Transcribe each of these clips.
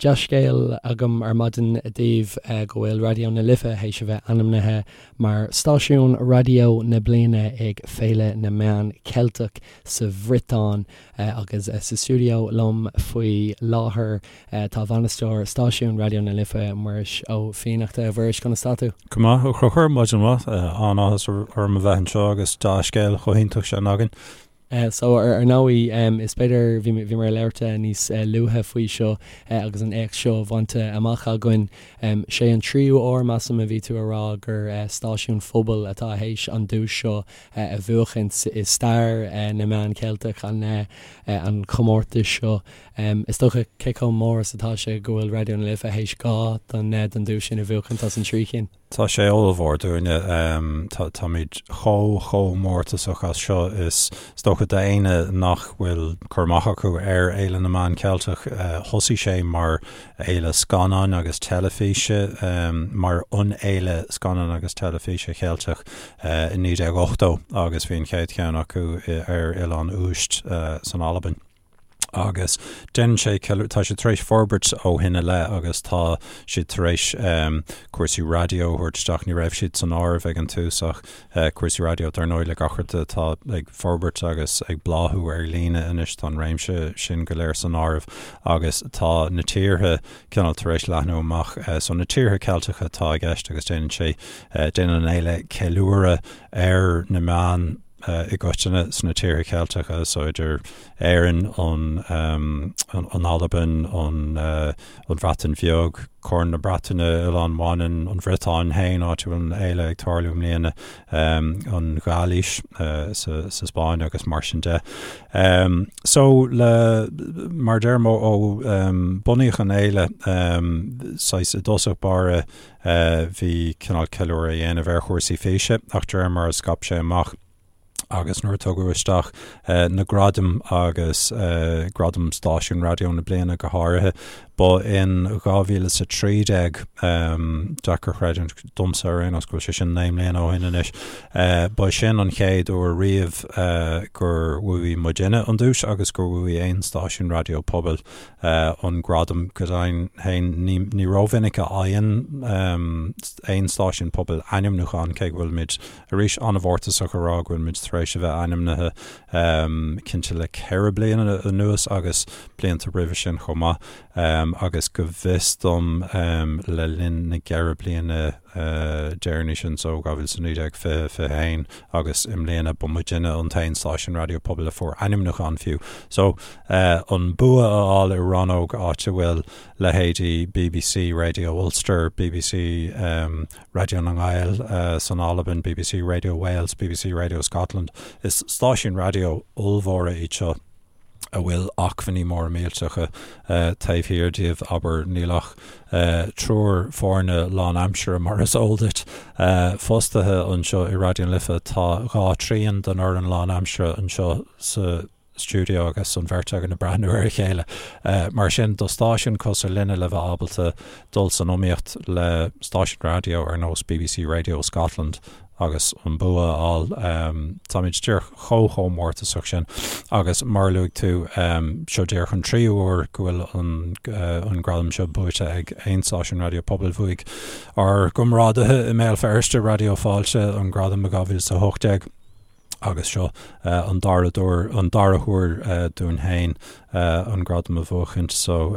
Dea-scéal agam ar maidin daoibh go bhfuil Raidió na Life théis a bheith ainmnithe mar Stáisiún Raidió na Bliana ag Féile na Meán Ceilteach sa Bhriotáin agus sa stiúideo liom faoi láthair tá bainisteoir stáisiún Raidió na Life, Muiris Ó Fiannachta. A Mhuiris, conas tá tú? Go maith, a Chonchúir, maidin mhaith. An-áthas orm a bheith anseo agus dea-scéal chomh hiontach sin againn. So, ar ndóigh, is b'fhéidir, bhí bhíomar ag labhairt níos luaithe faoi seo agus an éacht seo bainte amach againn. Sé an tríú uair, measaim, a bhí tú a rá gur stáisiún phobail atá théis an duais seo a bhuachaint i stair na meán Ceilteach, an an chomórtais seo. Is dócha cé chomh mór is atá sé go bhfuil Raidió na Life théis 2 den den duais sin a bhuachaint as an trí chinn. Tá sé ollmhór dúinne. Táimid chomh, chomh mórtasach as seo. Is dócha d'éinne nach bhfuil cur amach acu ar Fhéile na Meán Ceilteach, thosaigh sé mar fhéile scannáin agus teilifíse, mar an fhéile scannán agus teilifíse Cheilteach i 1980 agus bhí an chéad cheann acu ar Oileán Uist san Albain. agus déanann sé, tá sé tar éis forbairt ó shin i leith agus tá siad tar éis cúrsaí raidió a thabhairt isteach, ní raibh siad san áireamh ag an tús ach cúrsaí raidió dar ndóigh le gach rud atá ag forbairt agus ag bláthú ar líne anois tá an réimse sin go léir san áireamh agus tá na tíortha cineál tar éis leathnú amach so na tíortha Ceilteacha atá i gceist agus déanann sé, déanann an fhéile ceiliúradh ar na meáin i gcoitinne sna tíortha Ceilteacha, so idir Éirinn, an an Albain, an an Bhreatain Bheag, Corn na Breataine, Oileán Mhanann, an Bhriotáin féin, áit a bhfuil an fhéile ag tarlú i mbliana, an Ghailís sa sa Spáinn agus mar sin de. So le mar deirim ó bunaíodh an fhéile saghas i dtosach báire Bhí cineál ceiliúradh á dhéanamh ar chúrsaí físe ach de réir mar a scaip sé amach agus nuair a tugadh isteach na gradaim agus gradam stáisiún raidió na bliana go háirithe, ba in 2013, deacair a chreidiúint domsa ar aon nós go bhfuil sé sin 9 mbliana ó shin anois, ba sin an chéad uair riamh gur bhuaigh muidinne an duais agus gur bhuaigh aon stáisiún raidió pobail. an gradam go deimhin féin. Ní rómhinic a fhaigheann aon stáisiún pobail ainmniúchán, cé go bhfuilimid arís an-mhórtasach a rá go bhfuilimid tar éis a bheith ainmnithe cinnte le ceithre bliana anuas agus blianta roimhe sin chomh maith agus go bhfios dom le linn na gceithre bliana deireanaí sin, so 2019, 20, 21 agus i mbliana ba muidinne an t-aon stáisiún raidió pobail a fuair ainmniúchán fiú. So, an bua a fháil i rannóg áit a bhfuil leithéidí bbc Radio Ulster, bbc Raidió na nGael san Albain, bbc Radio Wales, bbc Radio Scotland, is stáisiúin raidió ollmhóra iad seo. a bhfuil acmhainní móra millteacha taobh thiar díobh, abair, níl ach triúr foirne lánaimseartha, mar is eol duit, fostaithe anseo i Raidió na Life. Tá dhá thrian den fhoireann lánaimseartha anseo sa stiúideo agus an bheirt againn ag breathnú ar a chéile. Mar sin, do stáisiún cosúil linne le bheith ábalta dul san iomaíocht le stáisiún raidió ar nós bbc Radio Scotland, agus an bua a fháil. Táimid díreach chomh chomh mórtasach sin agus mar a luaigh tú, seo díreach an tríú huair go bhfuil an an gradam seo buaite ag aon stáisiún raidió pobail. Bhuaigh ár gcomrádaithe i mBéal Feirste, Raidió Fáilte, an gradam i 2018 agus seo an dara dúr an dara huair dúinn féin an gradam a bhuachaint so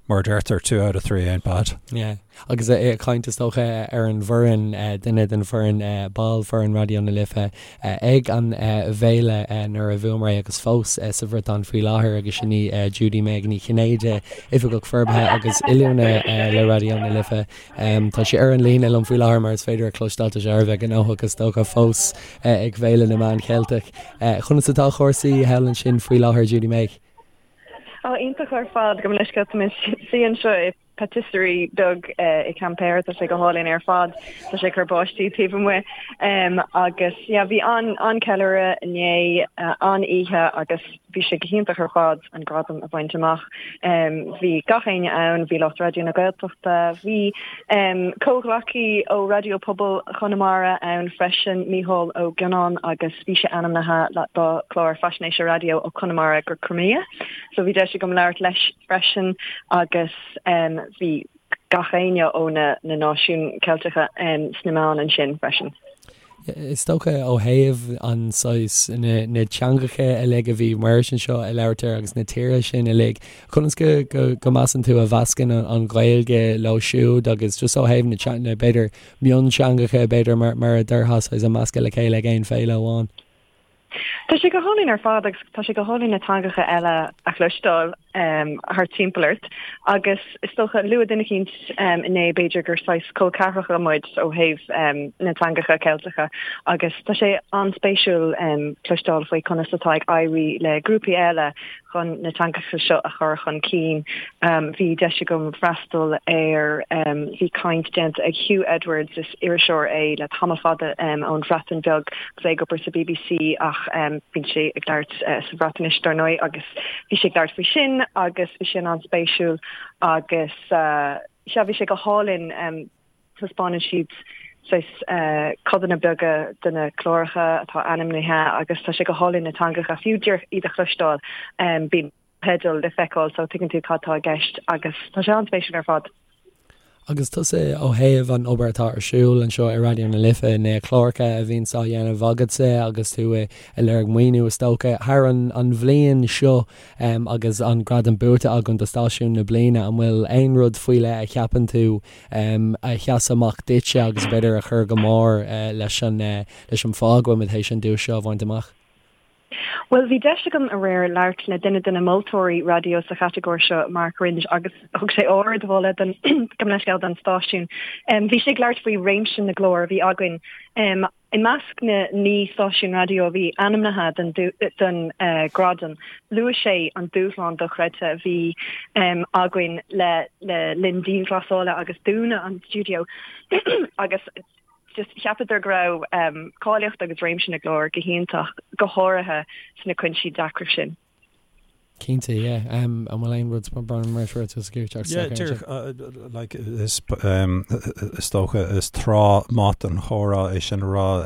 mar a deirtear two out of three ain't bad. Yeah. Agus ag caint is dócha ar an bhfoireann, duine den bhfoireann, ball foireann Raidió na Life ag an bhféile nuair a bhuamar é agus fós sa Bhriotáin faoi láthair agus sin í Judy Meg Ní Chinnéide, Oifigeach Forbartha agus Oiliúna le Raidió na Life. Tá sí ar an líne liom faoi láthair mar is féidir a chloisteáil, tá sé thar a bheith gnóthach is dócha fós ag Féile na Meán Cheilteach. Conas atá cúrsaí thall ansin faoi láthair Judy Meg? Ó, iontach ar fad, gabh mo leithscéal, tá mé i mo shuí anseo i patisserie beag i Quimper, tá sé go hálainn ar fad, tá sé ag cur báistí taobh amuigh agus yeah bhí an an-ceiliúradh inné, an-oíche agus. Bhí sé go hiontach ar fad an gradam a bhaint amach. Bhí gach éinne ann, bhí lucht Raidió na Gaeltachta, bhí comhghleacaí ó Raidió Pobail Chonamara ann freisin, Mícheál Ó Gionnáin agus bhí sé ainmnithe dá chlár faisnéise raidió ó Conamara go Crimea. So bhí deis agam labhairt leis freisin agus bhí gach éinne ó na náisiúin Ceilteacha sna meáin ansin freisin. Is dócha ó thaobh an saghas, na teangacha uilig a bhí Muiris anseo ag labhairt air agus na tíortha sin uilig, conas go, go, go measann tú a mheascann an Ghaeilge leo siúd agus just ó thaobh na, na b'fhéidir mionteangacha b'fhéidir mar, mar a déarfá saghas a meascadh le chéile ag aon féile amháin? Tá sé go hálainn ar fad agus tá sé go hálainn na teangacha eile a chloisteáil thart timpeall ort agus is dócha luaigh duine eicínt inné b'fhéidir gur saghas col ceathracha muid ó thaobh na teangacha Ceilteacha agus tá sé an-spéisiúil cloisteáil faoi conas atá ag éirí le grúpaí eile chun na teangacha seo a chur chun cinn. Bhí deis agam freastal ar, bhí caint déanta ag Huw Edwards, is iriseoir é le tamall fada ón Bhreatain Bheag agus é ag obair sa bbc ach bíonn sé ag labhairt sa Bhreatnais dar ndóigh agus bhí sé ag labhairt faoi sin agus bhí sin an-spéisiúil agus sea bhí sé go hálainn. Taispeánann siad saghas codanna beaga de na cláracha atá ainmnithe agus tá sé go hálainn na teangacha, fiú díreach iad a chloisteáil, bíonn teidil le feiceáil so tuigeann tú cad tá i gceist agus tá sé an-spéisiúil ar fad. Agus tusa ó thaobh an obair atá ar siúl anseo i Raidió na Life, na cláracha a bhíonns á dhéanamh agatsa agus tú ag lorg maoiniú is dócha, thar an bhliain seo agus an gradam buaite againn do Stáisiún na Bliana, an bhfuil aon rud faoi leith a cheapann tú a sheas amach duitse agus b'fhéidir a chuir go mór leis an leis an fáth go bhfuil muid théis an duais seo a bhaint amach? Bhuel, bhí deis agam aréir labhairt le duine de na moltóirí raidió sa chatagóir seo, Mark Wringe, agus thug sé ardmholadh don gabh mo leithscéal don stáisiún. Bhí sé ag labhairt faoi réimse na gclár a bhí againn. I measc na 9 stáisiún raidió a bhí ainmnithe don ghradam, luaigh sé an dúshlán dochreidte a bhí againn le linn dianghlasála agus dúnadh an stiúideo agus just cheapadar go raibh cáilíocht agus réimse na gclár go hiontach, go háirithe sna cúinsí deacra sin. Cinnte, yeah. An bhfuil aon rud mar seo tú sa gcúirteacht Yeah, díreach, like, is, is dócha, is tráth maith don chomhrá é sin a rá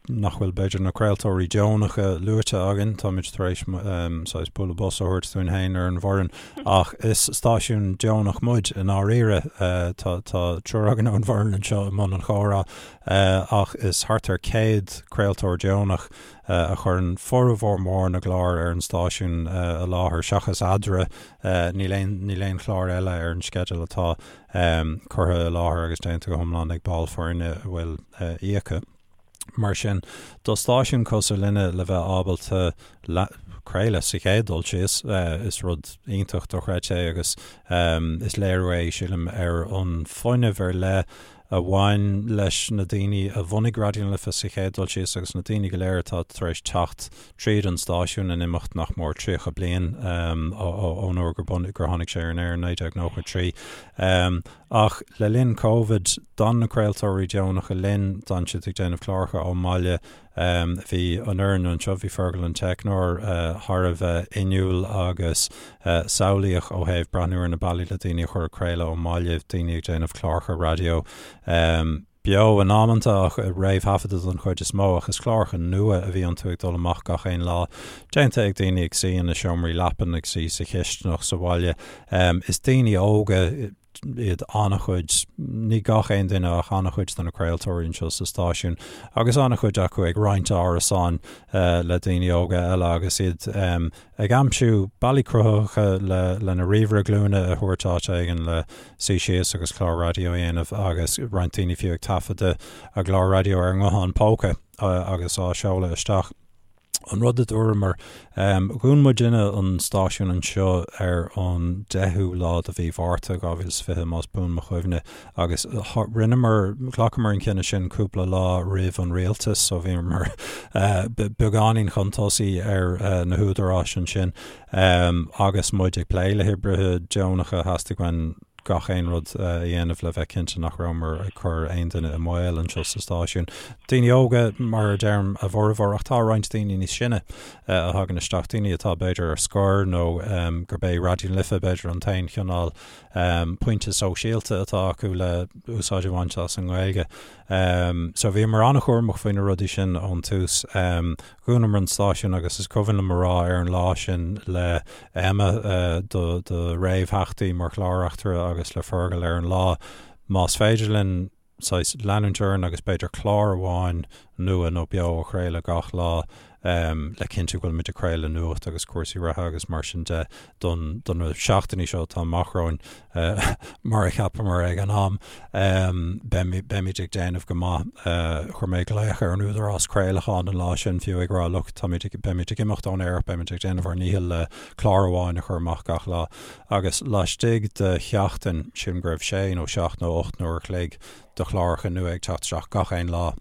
nach bhfuil b'fhéidir na craoltóirí deonacha luaite againn, táimid tar éis saghas bualadh bos a thabhairt dúinn féin ar an bhfoireann, ach is stáisiún deonach muid i ndáiríre. Tá, tá triúr againn ón bhfoireann anseo i mbun an chomhrá, ach is thart ar 100 craoltóir deonach a chuireann formhór mór na gclár ar an stáisiún i láthair, seachas Eadra, níl aon, níl aon chlár eile ar an sceideal atá curtha i láthair agus déanta go hiomlán ag ball foirne a bhfuil íoctha. Mar sin, do stáisiún cosúil linne le bheith ábalta craoladh sa chéad dul síos, is rud iontach dochreidte é agus is léiriú é, sílim, ar an fuinneamh ar leith a bhain leis na daoine a bhunaigh Raidió na Life sa chéad dul síos agus na daoine go léir atá tar éis teacht tríd an stáisiún in imeacht nach mór 30 bliain ón uair gur gur tháinig sé ar an aer in 1993. Ach le linn Covid, d'fhan na craoltóirí deonacha linn, d'fhan siad ag déanamh cláracha ón mbaile, Bhí an fhoireann anseo, bhí Fergal an teicneoir thar a bheith inniúil agus samhlaíoch ó thaobh breathnú ar na bealaí le daoine a chur ag craoladh ón mbaile, daoine ag déanamh cláracha raidió beo in amanta ach réamhthaifeadta don chuid is mó ach is cláracha nua a bhí iontu ag dul amach gach aon lá, déanta ag daoine ag suí ina seomraí leapan, ag suí sa chisteanach sa bhaile. Is daoine óga iad an-chuid, ní gach aon duine ach an-chuid de na craoltóirí anseo sa stáisiún agus an-chuid acu ag roinnt árasáin le daoine óga eile agus iad ag aimsiú bealaí cruthaitheacha le lena ríomhaire glúine a thabhairt áit éigin le suí síos agus clár raidió a dhéanamh agus roinnt daoine fiú ag taifeadadh a gclár raidió ar a nguthán póca agus á seoladh isteach. An rud a dúramar, dhún muidinne an stáisiún anseo ar an 10ú lá de mhí Mhárta 2020, más buan mo chuimhne, agus rinneamar, ghlacamar an cinneadh sin cúpla lá roimh an rialtas, so bhíomar beagáinín chun tosaigh ar na húdaráis ansin. Agus muid ag plé le hoibrithe deonacha, theastaigh uainn. gach aon rud a dhéanamh le bheith cinnte nach rabhamar ag cur aon duine i mbaol anseo sa stáisiún. Daoine óga, mar a deirim, a bhformhór, ach tá roinnt daoine níos sine a thagann isteach, daoine atá b'fhéidir ar scor nó gurb é Raidió na Life b'fhéidir an t-aon chineál pointe sóisialta atá acu le úsáid a bhaint as an nGaeilge. So bhíomar an-chúramach faoi na rudaí sin ón tús. Dhúnamar an stáisiún agus is cuimhin liom a rá ar an lá sin le Emma, do réamhtheachtaí mar chlár-reachtaire agus le Fergal ar an lá, más féidir linn saghas leanúint orainn agus b'fhéidir clár amháin nua nó beo a chraoladh gach lá le cinntiú go bhfuilimid ag craoladh nuacht agus cúrsaí reatha agus mar sin de don do na seachtainí seo atá amach romhainn mar a cheapamar ag an am. Beimid ag déanamh go maith. Chuir mé glaoch ar an Údarás Craolacháin an lá sin fiú ag rá look táimid ag beimid ag imeacht ón aer ach beimid ag déanamh ár ndícheall le clár amháin a chur amach gach lá. Agus laistigh de sheachtain, sílim go raibh sé nó seacht nó ocht n-uair a chloig de chláracha nua ag teacht isteach gach aon lá.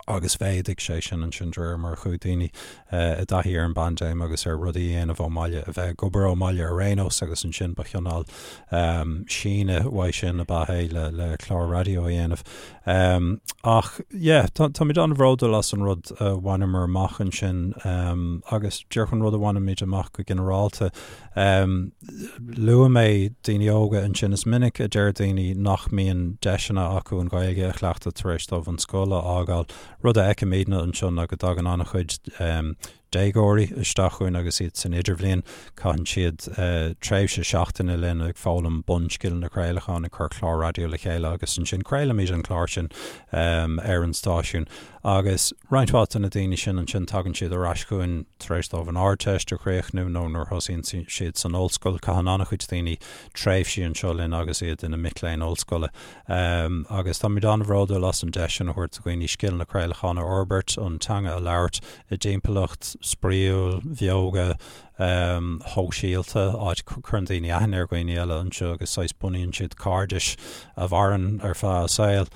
Agus mhéadaigh sé sin ansin de réir mar a chuaigh daoine i dtaithí ar an bpaindéim agus ar rudaí a dhéanamh ón mbaile, a bheith ag obair ón mbaile ar aon nós agus ansin ba chineál síneadh uaidh sin ab ea é le le clár raidió a dhéanamh. Ach yeah, táimid an-bhródúil as an rud a bhaineamar amach ansin agus díreach an rud a bhainimid amach go ginearálta. Luaigh mé daoine óga ansin. Is minic a deir daoine nach mbíonn deiseanna acu an Ghaeilge a chleachtadh tar éis dóibh an scoil a fhágáil. Rud a fheicimidne anseo ná go dtagann an-chuid déagóirí isteach chugainn agus iad san idirbhliain. Caitheann siad tréimhse seachtaine linn ag foghlaim bunscileanna craolacháin, ag cur clár raidió le chéile agus ansin craolaimid an clár sin ar an stáisiún. Agus roinnt mhaith de na daoine sin ansin tagann siad ar ais chugainn tar éis dóibh an Ardteist a chríochnú nó nuair a thosaíonn siad san ollscoil. Caitheann an-chuid daoine tréimhsí anseo linn agus iad ina mic léinn ollscoile. Agus táimid an-bhródúil as an deis sin a thabhairt do dhaoine scileanna craolacháin a fhorbairt, an teanga a labhairt i dtimpeallacht spraíúil, bheoga, shóisialta, áit a gcuireann daoine aithne ar dhaoine eile anseo agus saghas bunaíonn siad cairdis a mhaireann ar feadh a saoil.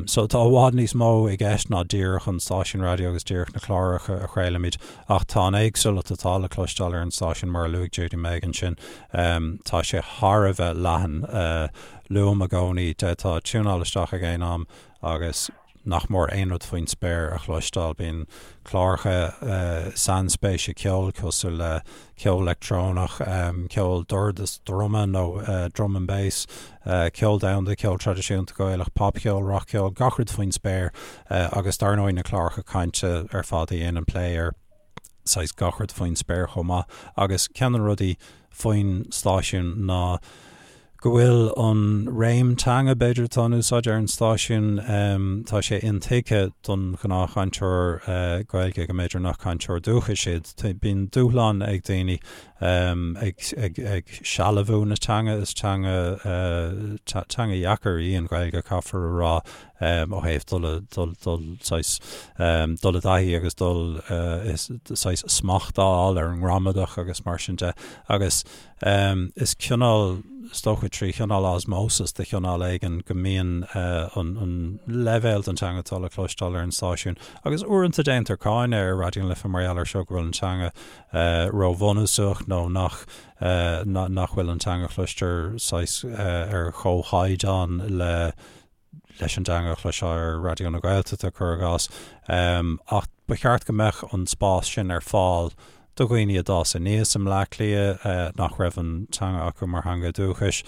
So tá i bhfad níos mó i gceist ná díreach an stáisiún raidió agus díreach na cláracha a chraolaimid ach tá an éagsúlacht atá le cloisteáil ar an stáisiún mar a luaigh Judy-Meg ansin, tá sé thar a bheith leathan. Luaim i gcónaí, d'fhéadfá tiúnáil isteach ag aon am agus nach mór aon rud faoin spéir a chloisteáil. Bíonn cláracha sainspéise ceoil cosúil le ceol leictreonach, ceol dord is druma nó drum and bass, ceol domhanda, ceol traidisiúnta Gaelach, popcheol, rac-cheol, gach rud faoin spéir agus dar ndóigh na cláracha cainte ar fad a dhéanann plé ar saghas gach rud faoin spéir chomh maith. Agus ceann de na rudaí faoin stáisiún ná go bhfuil an réim teanga, b'fhéidir, atá in úsáid ar an stáisiún, tá sé intuigthe don ghnáthchainteoir Gaeilge go mb'fhéidir nach cainteoir dúchais iad. Bíonn dúshlán ag daoine ag sealbhú na teanga, is teanga teanga dheacair í an Ghaeilge, caithfear a rá, ó thaobh dul dul dul saghas dul i dtaithí agus dul saghas smacht a fháil ar an ngramadach agus mar sin de. Agus Is cineál, is dócha trí chineál osmosis de chineál éigin go mbíonn an leibhéal den teanga atá le cloisteáil ar an stáisiún agus uaireanta déantar cáineadh ar Raidió na Life mar gheall air seo go bhfuil an teanga róbhunúsach nó nach nach bhfuil an teanga a chloistear saghas ar chomhchaighdeán le leis an dteanga a chloisfeá ar Raidió na Gaeltachta, cuir i gcás. Ach ba cheart go mbeadh an spás sin ar fáil do dhaoine a d'fhás aníos i mBleá Cliath nach raibh an teanga acu mar theanga dúchais,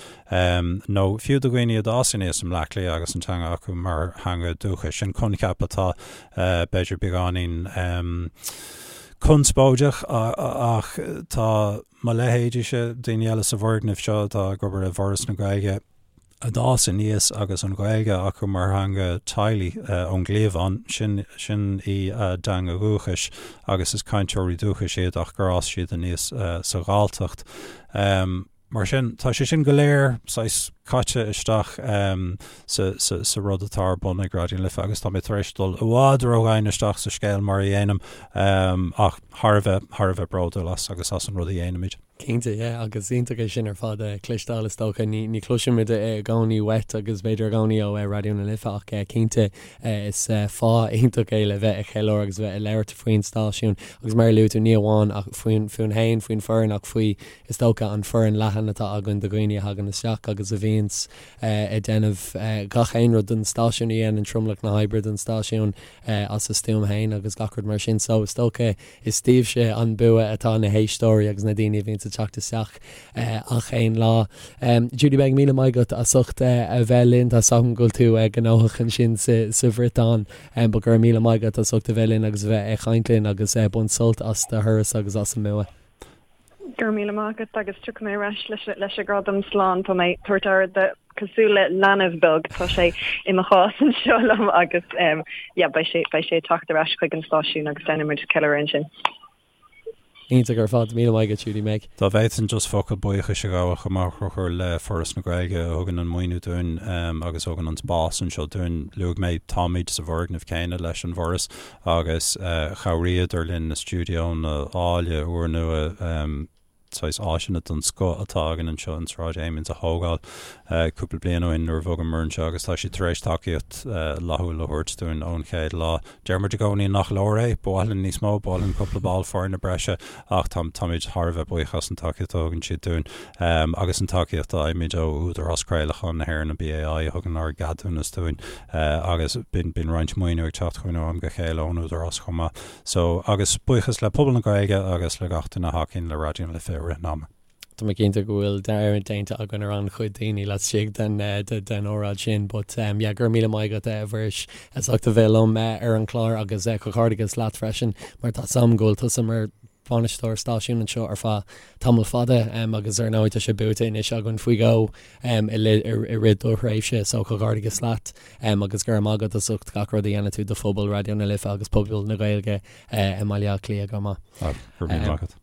nó fiú do dhaoine a d'fhás aníos i mBleá Cliath agus an teanga acu mar theanga dúchais. Sin coincheap atá b'fhéidir beagáinín conspóideach ach tá mo leithéidíse, daoine eile sa bhfoirgneamh seo atá ag obair i bhForas na Gaeilge, a d'fhás aníos agus an Ghaeilge acu mar theanga teaghlaigh ón gcliabhán, sin, sin í a dteanga dhúchais agus is cainteoirí dúchais iad ach gur fhás siad aníos sa Ghalltacht. Mar sin, tá sé sin go léir saghas caite isteach sa, sa, sa rud atá ar bun ag Raidió na Life agus tá mé tar éis dul i bhfad ródhomhain isteach sa scéal mar a dhéanaim ach thar a bheith, thar a bheith bródúil as agus as an rud a dhéanaimid. Cinnte, yeah, agus iontach é sin ar fad a chloisteáil is dócha. Ní ní chloisimid i gcónaí uait agus b'fhéidir i gcónaí ó Raidió na Life ach cinnte is fáth iontach é le bheith ag ceiliúradh agus bheith ag labhairt faoin stáisiún agus mar a luaigh tú ní amháin ach faoin fúinn féin, faoin foireann ach faoi is dócha an foireann leathan atá againn de dhaoine a thagann isteach agus a bhíonns ag déanamh gach aon rud don stáisiún a dhéanann tromlach na hoibre don stáisiún as a stuaim féin agus gach rud mar sin so is dócha Is daoibhse an bua atá na héisteoirí agus na daoine a bhíonns ag teacht isteach ach aon lá. Judy Meg, míle maith agat as ucht a bheith linn. Tá 's agam go bhfuil tú gnóthach ansin sa Bhriotáin but go raibh míle maith agat as ucht a bheith linn agus a bheith ag caint linn agus bain sult as do thuras agus as an mbua. Go raibh míle maith agat agus tiocfaidh mé ar ais leis an gradam slán. Tá mé ag tabhairt aire de cosúil le leanbh beag. Tá sé i mo chás anseo liom agus yeah beidh sé beidh sé ag teacht ar ais chuig an stáisiún agus déanfaidh muid ceiliúradh ansin. Iontach ar fad. Míle maith agat Judy Meg. Dá bhféadfainn just focal buíochais a ghabháil chomh maith a Chonchúir le Foras na Gaeilge a thugann an maoiniú dúinn agus a thugann an spás anseo dúinn. Luaigh mé táimid sa bhfoirgneamh céanna leis an bhForas agus chabhraíodar linn na stiúideonna áille úrnua, saghas áiseanna den scoth atá againn anseo in Sráid Amiens a thógáil cúpla bliain ó shin nuair a bhogamar anseo agus tá siad tar éis tacaíocht fhlaithiúil a thabhairt dúinn ón chéad lá. Deir muid i gcónaí nach leor é, ba mhaith linn níos mó, ba mhaith linn cúpla ball foirne breise ach táimid thar a bheith buíoch as an tacaíocht a thugann siad dúinn agus an tacaíocht a fhaighimid ó Údarás Craolacháin na hÉireann, an BAI, a thugann ár gceadúnas dúinn agus bíonn roinnt maoiniú ag teacht chugainn ó am go chéile ón Údarás chomh maith. So, agus buíochas le pobal na Gaeilge agus le gach duine a thacaíonn le Raidió na Life i rith an ama. Tá mé cinnte go bhfuil dearmad déanta againn ar an-chuid daoine laistigh den den óráid sin but yeah go raibh míle maith agat a Mhuiris as ucht a bheith liom ar an chlár agus comhghairdeachas leat freisin mar tá 's agam go bhfuil tusa mar bhainisteoir stáisiúin anseo ar feadh tamall fada agus ar ndóigh tá sé buaite anois againn faoi dhó i rith do thréimhse so comhghairdeachas leat agus go raibh maith agat as ucht gach rud a dhéanann tú do phobal Raidió na Life agus pobal na Gaeilge i mBaile Átha Cliath chomh maith. Go raibh míle maith agat.